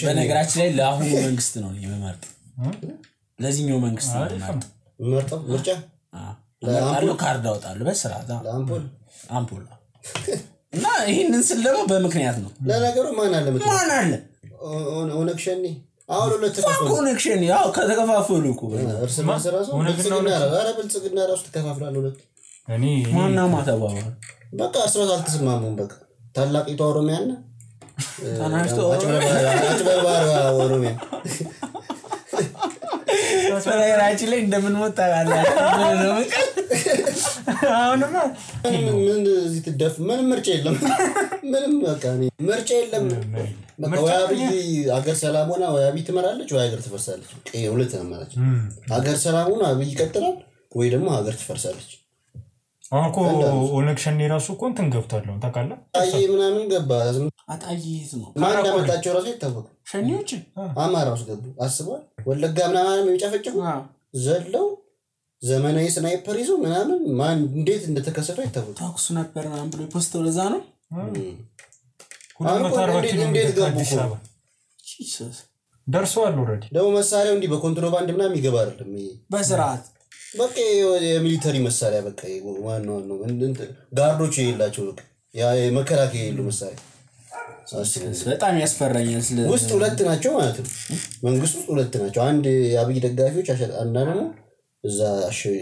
በነገራችን ላይ ለአሁኑ መንግስት ነው የሚመርጥ ለዚህኛው መንግስት ነው የሚመርጠው ምርጫ ለአምፖል ካርድ አወጣለሁ በስርዓት አምፖል እና ይሄንን ስል ደግሞ በምክንያት ነው ለነገሩ ማን አለ ኦነክሽኒ አሁን ሁለት ኮኔክሽን ያው ከተከፋፈሉ እኮ እርስ በርስ ራሱ ብልጽግና ራሱ ተከፋፍሏል ሁለት እኔ ማንና ማተባባል በቃ እርስ በርስ አልተስማሙም በቃ ታላቂቷ ኦሮሚያና ታናሽቷ አጭበርባሪ ኦሮሚያ በነገራችን ላይ እንደምንሞት ታውቃለህ አሁንማ ምን እዚህ ትደፍ ምንም ምርጫ የለም ምንም በቃ ምርጫ የለም በቃ ወያቢ ሀገር ሰላም ሆና ወያቢ ትመራለች ወይ ሀገር ትፈርሳለች ሁለት ነው ማለት ሀገር ሰላም ሆና አብይ ይቀጥላል ወይ ደግሞ ሀገር ትፈርሳለች አሁን ኦነክሽን ራሱ እኮ እንትን ገብቷል ታውቃለህ አይ ምናምን ገባ አጣይት ነው ማን እንዳመጣቸው ራሱ ይታወቅ ሸኒዎች አማራውስ ገቡ አስቧል ወለጋ ምናምን የሚጨፈጭፉ ዘለው ዘመናዊ ስናይፐር ይዞ ምናምን ማን እንዴት እንደተከሰተው ይታወቅ ታክሱ ነበር ምናምን ብሎ ፖስተው ለዛ ነው ሁሉም ታርባቲ እንዴት ገቡ ጂሰስ ደርሷል ኦሬዲ ደው መሳሪያው እንዲ በኮንትሮባንድ ምናምን ይገባ አይደለም በስርዓት በቃ የሚሊተሪ መሳሪያ በቃ ዋናው ነው ጋርዶች ይላቸው በቃ ያ መከላከያ ይሉ መሳሪያ በጣም ያስፈራኛል ስለ ውስጥ ሁለት ናቸው ማለት ነው መንግስት ውስጥ ሁለት ናቸው አንድ አብይ ደጋፊዎች አንዳንዱ ነው እዛ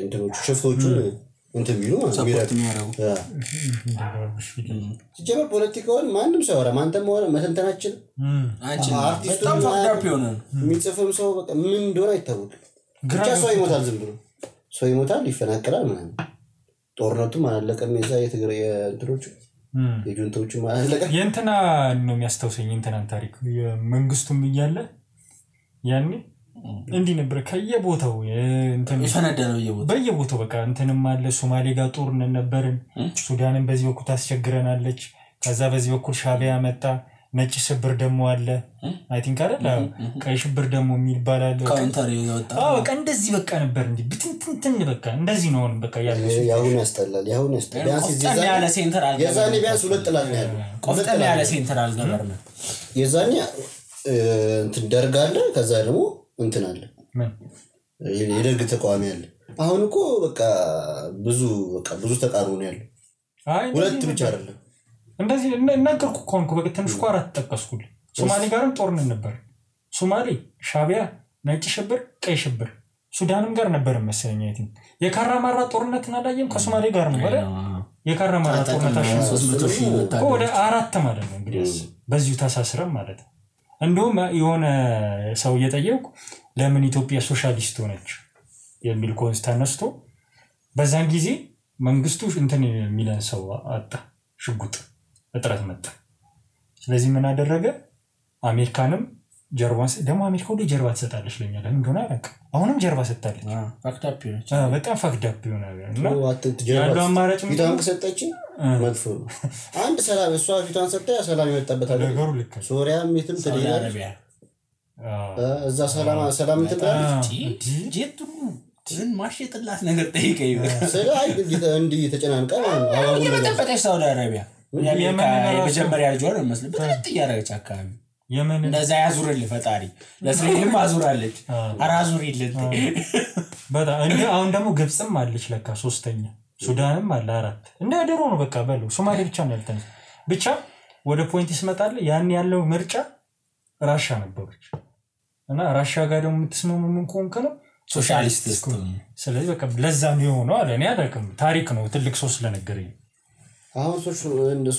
እንትኖቹ ሽፍቶቹ እንትን ቢሉ ሰፖርት የሚያደርጉ ሲጀመር ፖለቲካውን ማንም ሰው ያወራ ማንተም ሆነ መተንተናችን አርቲስቱ በጣም ፋክታፕ ይሆናል የሚጽፍም ሰው በቃ ምን እንደሆነ አይታወቅም ብቻ ሰው ይሞታል ዝም ብሎ ሰው ይሞታል ይፈናቀላል ምናምን ጦርነቱም አላለቀም የዛ የትግራይ እንትኖቹ የጁንቶቹ ማለቀ የእንትና ነው የሚያስታውሰኝ እንትናን ታሪክ የመንግስቱም እያለ ያኔ እንዲህ ነበር ከየቦታው እንትን ይፈነደለው በየቦታው በቃ እንትንም አለ ሶማሌ ጋር ጦርነት ነበርን ሱዳንን በዚህ በኩል ታስቸግረናለች ከዛ በዚህ በኩል ሻቢያ መጣ ነጭ ሽብር ደሞ አለ አይ ቲንክ አይደል ቀይ ሽብር ደሞ የሚባላል ካውንተር ይወጣ በቃ እንደዚህ በቃ ነበር እንዴ ብትንትን በቃ እንደዚህ ነው በቃ ያሁን ያስጠላል ቢያንስ እዚህ ያለ ሴንትራል የዛኔ ቢያንስ ሁለት ጥላት ነው ያለው ቆፍጠን ያለ ሴንትራል ገቨርንመንት የዛኔ እንትን ደርጋለ ከዛ ደግሞ እንትን አለ የደርግ ተቋሚ አለ አሁን እኮ በቃ ብዙ ተቃርኖ ነው ያለው ሁለት ብቻ አይደለም እንደዚህ እናገርኩ ኮንኩ በቃ ትንሽ ቋራት ተጠቀስኩል ሶማሌ ጋርም ጦርነት ነበር ሶማሌ ሻቢያ ነጭ ሽብር ቀይ ሽብር ሱዳንም ጋር ነበር መሰለኝ አይቲን የካራማራ ጦርነት እናላየም ከሶማሌ ጋር ነው አይደል የካራማራ ጦርነት ወደ 4 ማለት ነው እንግዲህ በዚሁ ተሳስረም ማለት እንደውም የሆነ ሰው እየጠየቁ ለምን ኢትዮጵያ ሶሻሊስት ሆነች የሚል ኮንስታንት ነስቶ በዛን ጊዜ መንግስቱ እንትን የሚለን ሰው አጣ ሽጉጥ እጥረት መጣ ስለዚህ ምን አደረገ አሜሪካንም ጀርባን ደግሞ አሜሪካ ወደ ጀርባ ተሰጣለች ለኛ ለምን እንደሆነ አላውቅ አሁንም ጀርባ ሰጣለች ፋክታፕ ነች በጣም ፋክታፕ ይሆናል እና ያለው አማራጭ ፊቷን ከሰጠችን መጥፎ አንድ ሰላም እሷ ፊቷን ሰጠ ሰላም ይመጣበት ነገሩ ልክ ሶሪያም የትም ትደያለች እዛ ሰላም ትላለች ጄቱ ትን ማሽጥላት ነገር ጠይቀኝ ስለይ እንዲ ተጨናንቀ አሁን የመጠበቀች ሳውዲ አረቢያ የመጀመሪያ ልጅ ወር መስለበት ጥያራች አካባቢ የመን እንደዛ ያዙርል ፈጣሪ ለእስራኤልም አዙራለች አራዙሪለት በጣም እንዴ አሁን ደግሞ ግብጽም አለች ለካ ሶስተኛ ሱዳንም አለ 4 እንደ ደሮ ነው በቃ በሉ ሶማሌ ብቻ ነው ያልተነስ ብቻ ወደ ፖይንት ይስመጣል ያን ያለው ምርጫ ራሻ ነበረች እና ራሻ ጋር ደግሞ የምትስማሙ ምን ኮንከ ነው ሶሻሊስት ስለዚህ በቃ ለዛ ነው ነው አለ እኔ አላውቅም ታሪክ ነው ትልቅ ሰው ስለነገረኝ አሁን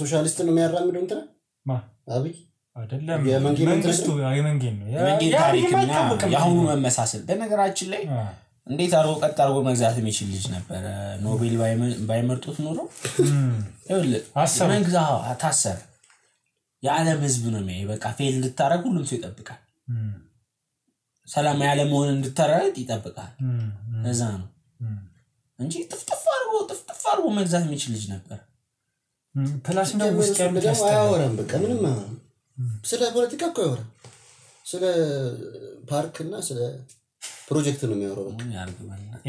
ሶሻሊስት ነው የሚያራምደው እንትና አብይ አይደለም መንግስቱ የመንግስት ነው የመንግስት ታሪክና ያሁኑ መመሳሰል በነገራችን ላይ እንዴት አርጎ ቀጥ አርጎ መግዛት የሚችል ልጅ ነበር ኖቤል ባይመርጡት ኖሮ መንግዛው ታሰር የዓለም ህዝብ ነው የሚያይ በቃ ፌል እንድታረግ ሁሉም ሰው ይጠብቃል ሰላም ያለ መሆን እንድታረግ ይጠብቃል ለዛ ነው እንጂ ጥፍጥፍ አርጎ መግዛት የሚችል ልጅ ነበር ፕላስ ነው ውስጥ ያሉት አያወራም በቃ ምንም ስለ ፖለቲካ እኮ ያወራ ስለ ፓርክ እና ስለ ፕሮጀክት ነው የሚያወራው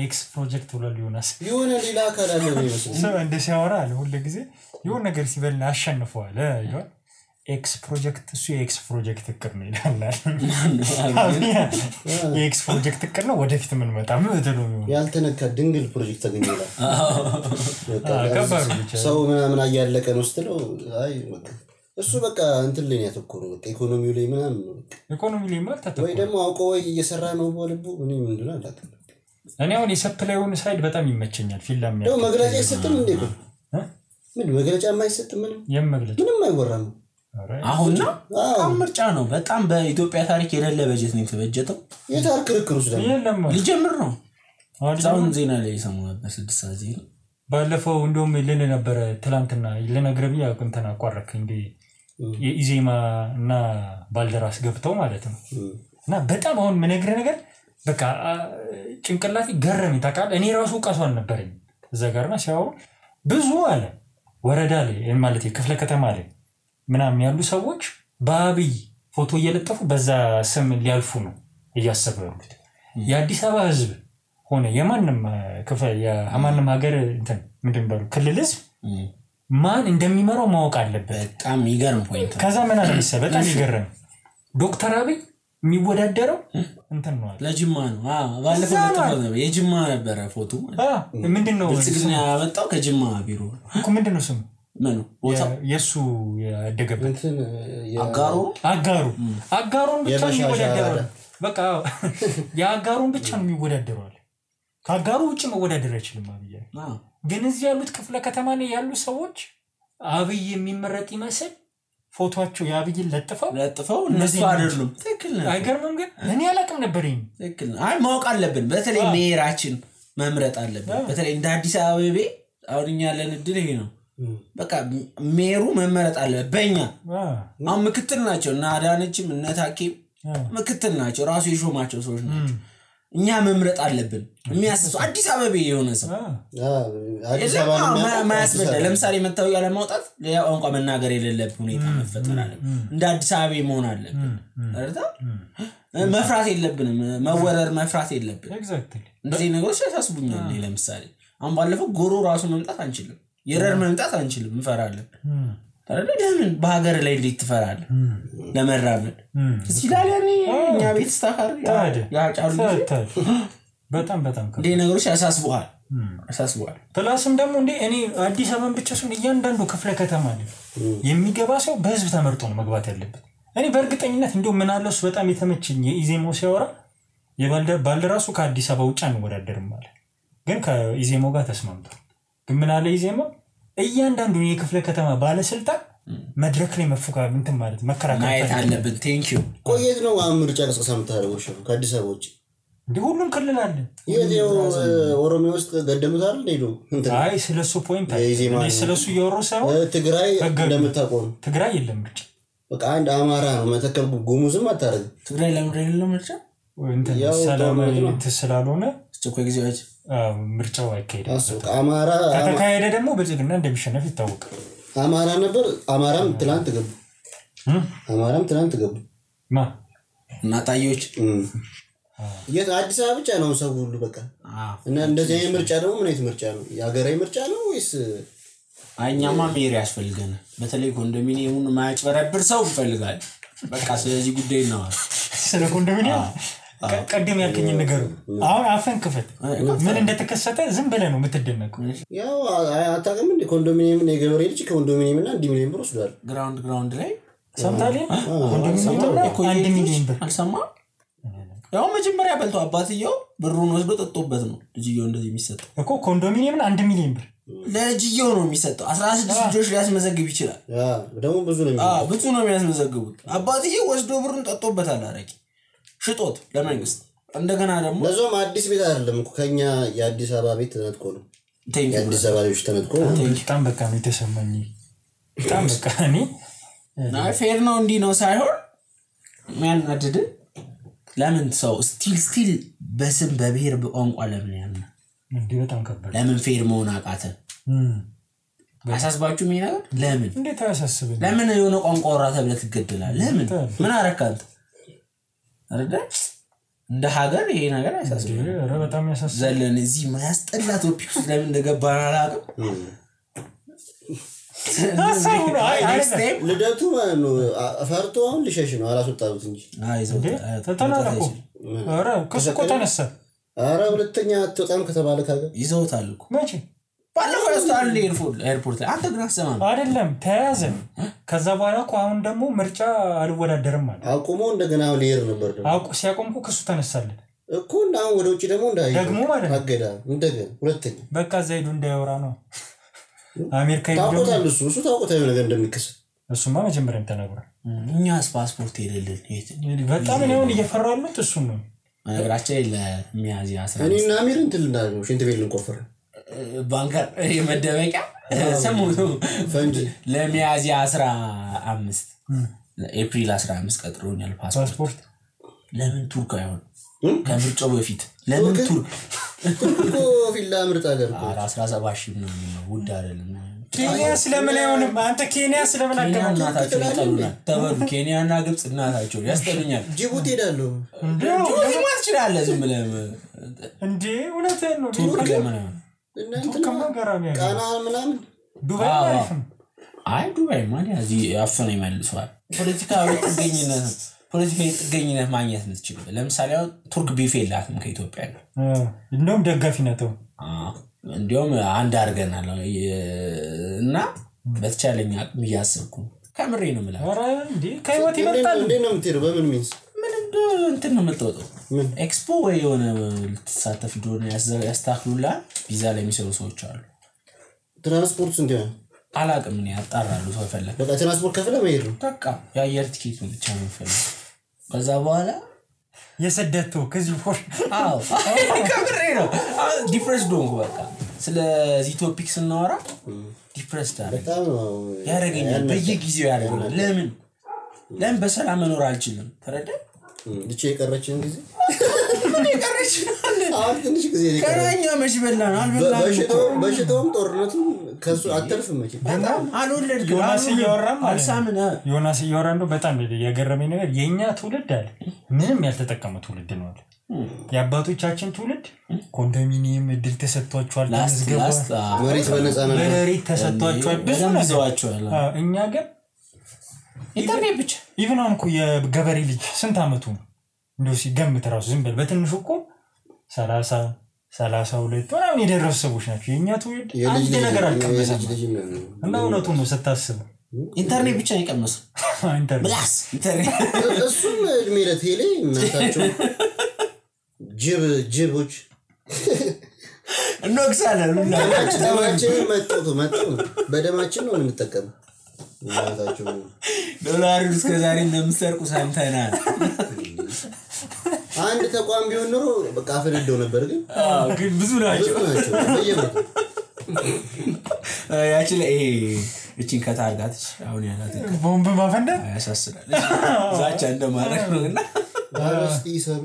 ኤክስ ፕሮጀክት ብሎ ሊሆናስ የሆነ ሌላ አካል አለ ነው ሰው እንደ ሲያወራ አለ ሁሉ ጊዜ የሆነ ነገር ሲበልና አሸንፈዋል ይላል ኤክስ ፕሮጀክት እሱ የኤክስ ፕሮጀክት እቅድ ነው ይላል የኤክስ ፕሮጀክት እቅድ ነው ወደፊት ምን መጣ ምን ተደው ያልተነካ ድንግል ፕሮጀክት ተገኘላ ከባድ ብቻ ሰው ምናምን አያለቀ ነው ስትለው አይ በቃ እሱ በቃ እንትን ላይ ያተኮረው በቃ ኢኮኖሚው ላይ ምናምን ነው ኢኮኖሚ ላይ ማለት ተተኮረ ወይ ደግሞ አውቆ ወይ እየሰራ ነው በልቡ ምን ምንድነው አላውቅም እኔ አሁን የሰፕላይውን ሳይድ በጣም ይመቸኛል ፊልም ነው መግለጫ ይሰጥም እንዴ ምን መግለጫ የማይሰጥ ምንም አይወራም አሁን ነው ምርጫ ነው በጣም በኢትዮጵያ ታሪክ የሌለ በጀት ነው የተበጀተው የታሪክ ክርክሩስ ደግሞ ሊጀምር ነው አሁን ዜና ላይ ሰሞኑን በ6 ሰዓት ዜና ባለፈው እንደውም ልን ነበር ትላንትና ለነግረብያ እንተና አቋረክ እንዴ የኢዜማ እና ባልደራስ ገብተው ማለት ነው እና በጣም አሁን ምንግረ ነገር በቃ ጭንቅላቴ ገረመኝ ታውቃለህ እኔ ራሱ ቃሷን ነበርኝ እዛ ጋርና ሲያወሩ ብዙ አለ ወረዳ ላይ ማለት የክፍለ ከተማ ላይ ምናምን ያሉ ሰዎች በአብይ ፎቶ እየለጠፉ በዛ ስም ሊያልፉ ነው እያሰበው ያሉት የአዲስ አበባ ህዝብ ሆነ የማንንም የማንንም ሀገር እንትን ምንድነው ክልልስ ማን እንደሚመራው ማወቅ አለበት በጣም ይገርም ፖይንት ከዛ ምን አለመሰለ በጣም ይገርም ዶክተር አብይ የሚወዳደረው እንትን ነው ለጅማ ነው ባለፈው ተፈዘበ የጅማ ነበር ፎቶ ምንድነው ብልጽግና ያመጣው ከጅማ ቢሮ እኮ ምንድነው ስሙ ምኑ የሱ ያደገበት አጋሩን ብቻ ነው የሚወዳደረው በቃ ያጋሩን ብቻ ነው የሚወዳደረው ካጋሩ ውጭ መወዳደር አይችልም አብይ ግን እዚህ ያሉት ክፍለ ከተማ ላይ ያሉ ሰዎች አብይ የሚመረጥ ይመስል ፎቶአቸው ያብይን ለጥፈው እነሱ አይደሉም ትክክል ነው አይገርምም ግን እኔ አላቅም ነበርኝ ትክክል አይ ማወቅ አለብን በተለይ ሜራችን መምረጥ አለብን በተለይ እንደ አዲስ አበባ አውርኛ ያለን እድል ይሄ ነው በቃ ሜሩ መመረጥ አለ በእኛ አሁን ምክትል ናቸው እና አዳነችም እና ታኪም ምክትል ናቸው ራሱ የሾማቸው ሰዎች ናቸው እኛ መምረጥ አለብን የሚያስሱ አዲስ አበባ የሆነ ሰው አዲስ አበባ ማያስበደ ለምሳሌ መታወቂያ ለማውጣት ሌላ ቋንቋ መናገር የሌለበት ሁኔታ መፈጠር አለ እንደ አዲስ አበባ መሆን አለብን አይደል መፍራት የለብንም መወረር መፍራት የለብንም ኤግዛክትሊ እንደዚህ ነገሮች ያሳስቡኛል ለምሳሌ አሁን ባለፈው ጎሮ ራሱ መምጣት አንችልም የረር መምጣት አንችልም እንፈራለን አይደል ለምን በሀገር ላይ እንዴት ትፈራለህ ለመራመድ ሲላልያኒ እኛ ቤት ስታካር ያጫሉ በጣም እንደ ነገሮች ያሳስቡሃል ፕላስም ደግሞ እንደ እኔ አዲስ አበባን ብቻ ሰው እያንዳንዱ ክፍለ ከተማ ላይ የሚገባ ሰው በህዝብ ተመርጦ ነው መግባት ያለበት እኔ በእርግጠኝነት እንደው ምን አለስ በጣም የተመቸኝ የኢዜሞ ሲያወራ ባልደራሱ ከአዲስ አበባ ውጭ አንወዳደርም ማለት ግን ከኢዜሞ ጋር ተስማምቷል ግን ምን አለ ኢዜሞ እያንዳንዱ የክፍለ ከተማ ባለስልጣን መድረክ ላይ መፎካከር እንትን ማለት መከራከር ማየት አለብን ቴንክ ዩ ቆየት ነው አምርጫ ለስቀሳ መታረው ከአዲስ አበባ ውጭ እንደ ሁሉም ክልል አለ የኔው ኦሮሚያ ውስጥ ገደሙት አይደል ሄዶ አይ ስለሱ ፖይንት አይ ስለሱ እየወረሰው ትግራይ እንደምታቆም ትግራይ የለም ብቻ በቃ አንድ አማራ ነው መተከል ጉሙዝም አታረግ ትግራይ ለምን የለም ብቻ እንትን ሰላማዊ ተስላልሆነ እኮ ጊዜዎች ምርጫው አይካሄድም አማራ ከተካሄደ ደግሞ ብልጽግና እንደሚሸነፍ ይታወቃል አማራ ነበር አማራም ትላንት ገቡ ማ እናታዮች አዲስ አበባ ብቻ ነው ሰው ሁሉ በቃ እና እንደዚህ አይነት ምርጫ ደግሞ ምን አይነት ምርጫ ነው የሀገራዊ ምርጫ ነው ወይስ አይኛማ ሜሪ ያስፈልገናል በተለይ ኮንዶሚኒየሙን ማያጭበረብር ሰው ይፈልጋል በቃ ስለዚህ ጉዳይ ነው ስለ ኮንዶሚኒየም ቀደም ያልከኝ ነገር አሁን አፈን ክፈት ምን እንደተከሰተ ዝም ብለህ ነው የምትደነቀው ያው አታውቅም እንደ ኮንዶሚኒየም የገበሬ ልጅ ኮንዶሚኒየም እና 1 ሚሊዮን ብር ወስዷል ግራውንድ ላይ ሰምታለህ ኮንዶሚኒየም 1 ሚሊዮን ብር አልሰማም ያው መጀመሪያ በልቶ አባትየው ብሩን ወስዶ ጠጥቶበት ነው ልጅየው እንደዚህ የሚሰጠው እኮ ኮንዶሚኒየም 1 ሚሊዮን ብር ለልጅየው ነው የሚሰጠው 16 ልጆች ሊያስመዘግብ ይችላል ደግሞ ብዙ ነው የሚያስመዘግቡት አባትየው ወስዶ ብሩን ጠጥቶበታል አረቂ ሽጦት ለመንግስት እንደገና ደግሞ ለዞም አዲስ ቤት አይደለም እኮ ከኛ የአዲስ አበባ ቤት ተነጥቆ ነው የአዲስ አበባ ልጆች ተነጥቆ በጣም በቃ ነው የተሰማኝ በጣም በቃ እኔ ፌር ነው እንዲ ነው ሳይሆን ማን አድድ ለምን ሰው ስቲል በስም በብሔር በቋንቋ ለምን ያና እንዴ በጣም ከባድ ለምን ፌር መሆን አቃተ አሳስባችሁ ምን ነገር ለምን እንዴት አያሳስብም ለምን የሆነ ቋንቋ ወራ ተብለ ትገደላል ለምን ምን አረካንተ አይደል እንደ ሀገር ይሄ ነገር ያሳስባል ኧረ በጣም ያሳስባል ዘለን እዚህ ማያስጠላ ቶፒክ ለምን እንደገባን አላውቅም ልደቱ ነው አፈርቶ አሁን ልሸሽ ነው አላስወጣሁት እንጂ ተተናነቁ ኧረ ከስቆ ተነሳ ኧረ ሁለተኛ አትወጣም ከተባለ ካገ ይዘውታል እኮ መቼ ባለፈው ያስታል ኤርፖርት ላይ አንተ ግን አሰማም አይደለም ተያዘ ከዛ በኋላ እኮ አሁን ደግሞ ምርጫ አልወዳደርም ማለት አቁሞ እንደገና ሊየር ነበር አቁ ሲያቆምኩ ከሱ ተነሳለት እኮ እና አሁን ወደ ውጪ ደግሞ እንዳይ ደግሞ ማለት አገዳ እንደገና ሁለተኛ በቃ ዘይዱ እንዳይወራ ነው አሜሪካ ይደውላል እሱ ታውቁታው ነገር እንደሚከሰት እሱማ መጀመሪያም ተናግሯል እኛስ ፓስፖርት የሌለን በጣም ነው እየፈራሉት እሱ ነው ነገራችን ለሚያዚያ 11 እኔና አሚር እንትን እንዳለው ሽንት ቤት ልንቆፈር ባንከር የመደበቂያ ሰሞኑ ፈንጂ ለሚያዚያ 15 ኤፕሪል 15 ቀጥሮኛል ፓስፖርት ለምን ቱርክ አይሆን ከምርጫው በፊት ለምን ቱርክ ፊላ ምርጥ ሀገር 17 ነው ውድ አይደለም ኬንያ ስለምን አይሆንም አንተ ኬንያ ስለምን አቀማጣታችሁ ይጠሉናል ተበሉ ኬንያና ግብጽ እናታቸው ያስጠሉኛል ጅቡቲ ሄዳለሁ ጅቡቲ ማለት ይችላል ዝም ብለህ እንዴ እውነቴን ነው ቱርክ ለምን ቃና ምናምን ዱባይ አሪፍ ነው አይ ዱባይ ማለት እዚህ አፈነ ይመልሷል ፖለቲካዊ ጥገኝነት ማግኘት የምትችል ለምሳሌ ቱርክ ቢፌ የላትም ከኢትዮጵያ ጋር እንደውም ደጋፊ ናቸው እንደውም አንድ አድርገናል እና በተቻለኝ አቅም እያሰብኩ ከምሬ ነው ማለት ኧረ እንዴ ከህይወት ይመጣል እንዴ ነው የምትሄደው በምን ሚንስ ምን እንትን ነው የምትወጣው ኤክስፖ ወይ የሆነ ልትሳተፍ ዶነ ያስተካክሉላ ቪዛ ላይ የሚሰሩ ሰዎች አሉ ትራንስፖርት እንዴ አላቅም እኔ አጣራሉ ሰው ፈለገ በቃ ትራንስፖርት ከፍለ መሄድ ነው በቃ የአየር ቲኬት ብቻ ነው የሚፈልገው ከዛ በኋላ የሰደተው ከዚህ ፎር አዎ ከምሬ ነው ዲፍረንስ ዶንግ በቃ ስለዚህ ቶፒክ ስናወራ ዲፕረስድ በጣም ያደርገኛል በየጊዜው ያደርገኛል ለምን በሰላም መኖር አልችልም ተረዳ ልጅ የቀረችን ጊዜ አሁን ትንሽ ጊዜ ከራኛ መሽበላን አልበላም በሽታውም ጦርነቱም ከሱ አተርፍም መቼ አልወለድኩም ዮናስ እያወራ ነው በጣም የገረመኝ ነገር የኛ ትውልድ አለ ምንም ያልተጠቀመ ትውልድ ነው አለ የአባቶቻችን ትውልድ ኮንዶሚኒየም እድል ተሰጥቷቸዋል ተዝገባ መሬት በነፃነት መሬት ተሰጥቷቸዋል ብዙ ነገሮች እኛ ግን ኢንተርኔት ብቻ ኢቭን አንኩ የገበሬ ልጅ ስንት አመቱ ነው እንደው ሲገምት ራሱ ዝም በል በትንሹ እኮ 30 32 ምናምን የደረሱ ሰዎች ናቸው የኛ ትውልድ አንድ ነገር አልቀመሰም እና እውነቱን ነው ስታስብ ኢንተርኔት ብቻ ይቀመስ ኢንተርኔት ብላስ ኢንተርኔት እሱም እድሜ ለቴሌ እናታቸው ጅቦች እንወቅሳለን ደማችን መጥቶ በደማችን ነው የምንጠቀመው እናታቸው ዶላር እስከ ዛሬ እንደምሰርቁ ሰምተናል አንድ ተቋም ቢሆን ኖሮ በቃ አፈነደው ነበር ግን ብዙ ናቸው በየመቱ ያቺ እቺን ከታርጋት አሁን ያላት ቦምብ ማፈንዳት ያሳስራል ዛቻ እንደማረክ ነውና አረስቲ ሰብ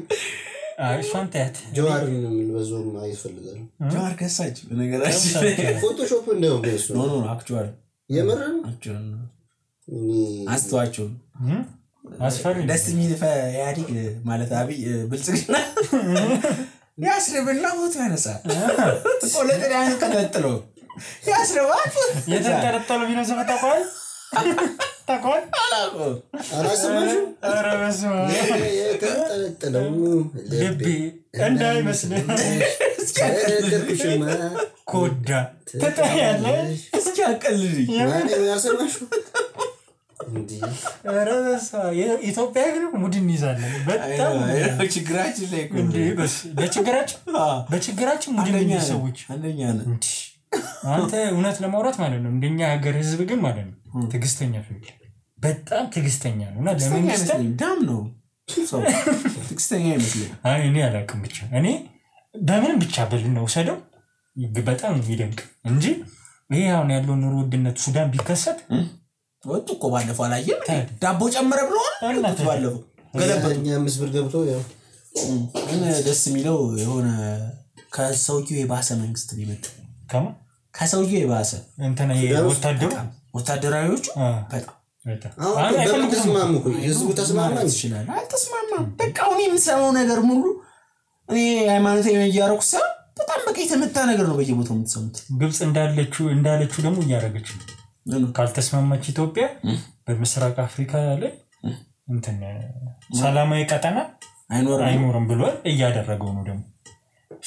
ሻንታት ጆዋርን በዞም አይፈልጋል ጆዋር ከሳች በነገራችን ፎቶሾፕ እንደው ገሱ ኖ አክቹዋሊ የመረን አክቹዋሊ አስተዋቸው አስፈሪ ደስ የሚል ያዲግ ማለት አብይ ብልጽግና ያስረብና ሆት ያነሳ ቆለጥሪያን ተከትሎ ያስረባል የተንጠለጠለ ቢኖ ዘመጣቋል ታቋል አላሰማሽ አረበስ የተንጠለጠለው ልቤ እንዳይመስል እስኪያቀልልሽማ ኮዳ ተጣያለ እስኪያቀልልኝ ማን ያሰማሽ እንዴ አረበስ የኢትዮጵያ ግን ሙድን ይዛለን በጣም ችግራችን ላይ እንዴ በችግራችን ሙድን የሚሰዎች አንደኛ ነው አንተ እውነት ለማውራት ማለት ነው እንደኛ ሀገር ህዝብ ግን ማለት ነው ትግስተኛ ፍቅር በጣም ትግስተኛ ነውና ለመንግስት ዳም ነው ሰው ትግስተኛ ይመስላል አይ እኔ አላውቅም ብቻ እኔ በምንም ብቻ በልነው ሰደው በጣም ይደንቅ እንጂ ይሄ አሁን ያለው ኑሮ ውድነት ሱዳን ቢከሰት ወጥ እኮ ባለፈው አላየም ዳቦ ጨመረ ብሎ ባለፈው ገለበኛ ምስብር ገብቶ ያው ደስ የሚለው የሆነ ከሰውዬው የባሰ መንግስት ሊመጣ ከሰውዬው የባሰ እንተና ወታደራዊዎቹ በጣም አሁን ተስማሙ ህዝቡ ተስማማ ይችላል አልተስማማም በቃ እኔ የምሰማው ነገር ሙሉ እኔ ሃይማኖታዊ እያረኩ ሰው በጣም በቃ የተመታ ነገር ነው በየቦታው የምትሰሙት ግብጽ እንዳለችው ደግሞ እያረገች ነው ካልተስማማች ኢትዮጵያ በምስራቅ አፍሪካ ላይ እንትን ሰላማዊ ቀጠና አይኖርም ብሎ እያደረገው ነው ደግሞ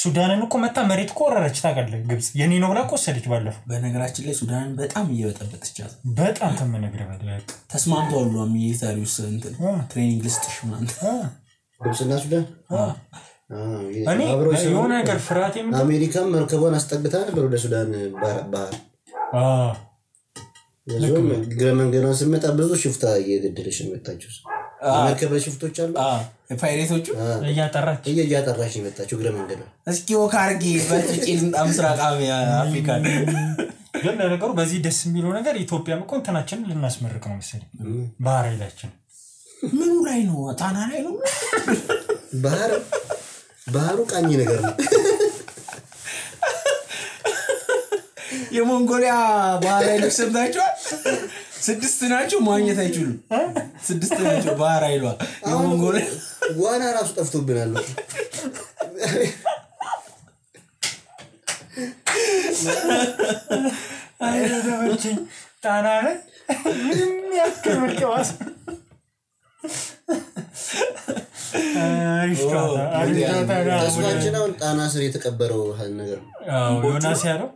ሱዳንን እኮ መታ መሬት ቆረረች ታቀለ ግብጽ የኔ ነው ብላ ቆሰደች ባለፈው በነገራችን ላይ ሱዳንን በጣም እየበጠበጠቻት በጣም ተመነግረ በደቅ ተስማምቷል ሚሊታሪውስ እንትን ትሬኒንግ ልስጥሽ ማለት ግብጽና ሱዳን እኔ የሆነ ነገር ፍራቴ ምን አሜሪካም መርከቧን አስጠግታ ነበር ወደ ሱዳን ባህር ለዞም ግረመንገናን ስመጣ ብዙ ሽፍታ እየገደለሽ መጣችው መርከበ ሽፍቶች አሉ ፓይሬቶቹ እያጠራች መጣችው ግረመንገና እስኪ ወካርጊ በጥቂል ምስራቅ አፍሪካ ግን ነገሩ በዚህ ደስ የሚለው ነገር ኢትዮጵያም እኮ እንተናችን ልናስመርቅ ነው መሰለኝ ባህር ኃይላችን ምኑ ላይ ነው ጣና ላይ ነው ባህሩ ቃኝ ነገር ነው የሞንጎሊያ ባህር ኃይሎች ሰምታችኋል 6 ናቸው ማግኘት አይችሉም 6 ናቸው ባህር ኃይሏ የሞንጎሊያ ዋና ራሱ ጠፍቶብናል አይደረች ጣና ላይ ምንም ያከብርከዋስ ተስፋችንን ጣና ስር የተቀበረው ነገር ዮናስ ያለው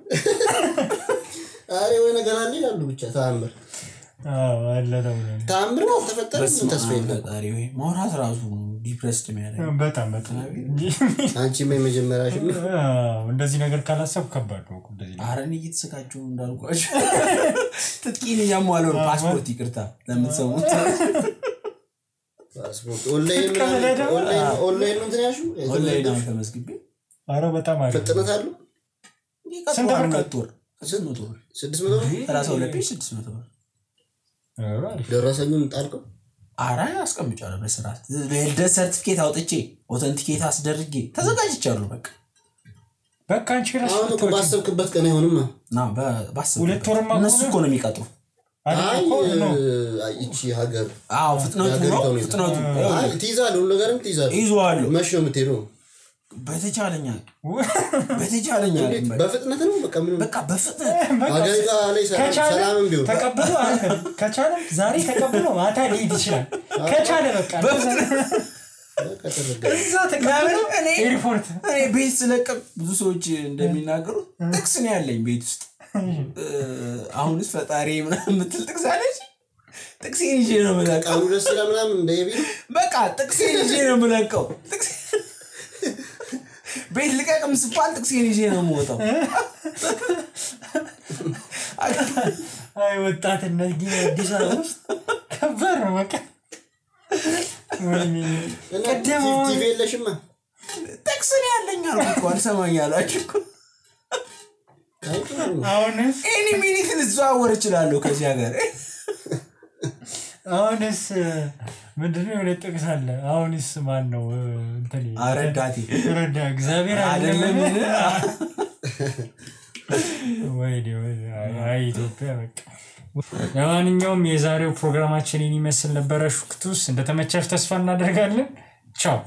አሬ ወይ ነገር አለ ያሉ ብቻ ታምር አለ ነው ታምር ነው ተፈጠረ ተስፋ የለም አሬ ወይ ማውራት ራሱ ዲፕሬስድ የሚያደርግ በጣም አንቺ መጀመሪያሽ እንደዚህ ነገር ካላሰብ ከባድ ነው እንደዚህ አረን እየተሰቃቸው እንዳልኳችሁ ትጥቂን ያሟለው ፓስፖርት ይቅርታ ለምትሰሙት ፓስፖርት ኦንላይን ነው ትያሹ ኦንላይን ነው ተመስግቤ አረ በጣም አሪፍ ፍጥነት አለው ስንት ብር ቀጥቷል 600 ብር 600 ብር 32 ፔጅ 600 ብር ደረሰኙን ጣልከው አራ አስቀምጫለሁ በስርዓት ለልደት ሰርቲፊኬት አውጥቼ ኦተንቲኬት አስደርጌ ተዘጋጅቻለሁ በቃ አንቺ ራስሽ አሁን እኮ ባሰብክበት ቀን አይሆንማ ና ባሰብ ሁለት ወርማ እነሱ እኮ ነው የሚቀጥሩ እቺ ሀገር ፍጥነቱ ትይዛለህ ሁሉ ነገርም ትይዛለህ ይዟለሁ መቼ ነው የምትሄደው በተቻለኛ በፍጥነት ነው በቃ በፍጥነት ሀገሪቷ ላይ ሰላምም ቢሆን ተቀበሉ ከቻለ ዛሬ ተቀበሉ ማታ ሊሄድ ይችላል ከቻለ በቃ እዛ ተቀበሉ ኤርፖርት ቤት ስለቀም ብዙ ሰዎች እንደሚናገሩት ጥቅስ ነው ያለኝ ቤት ውስጥ አሁንስ ፈጣሪ ምናምን ምትል ጥቅስ አለች ጥቅሴን ይዤ ነው የምለቀው አሁን ደስ ይላል ምናምን እንደየቢ በቃ ጥቅሴን ይዤ ነው የምለቀው ጥቅስ ቤት ልቀቅም ስባል ጥቅሴን ይዤ ነው የምወጣው አይ ወጣትነት ግን አዲስ አበባ ውስጥ ከበር ነው በቃ ቀደም ቲቪ የለሽማ ጥቅስ ነው ያለኝ አልኩ አልሰማኝ አላችሁ አሁንስ ኤኒ ሚኒት ልዘዋወር እችላለሁ ከዚህ ሀገር አሁንስ ምንድነው የለጥቅስ አለ አሁንስ ማን ነው እንትን አረዳቲ ረዳ እግዚአብሔር አይደለም ወይ አይ ኢትዮጵያ በቃ ለማንኛውም የዛሬው ፕሮግራማችን ይመስል ነበር ሹክቱስ እንደተመቻችሁ ተስፋ እናደርጋለን ቻው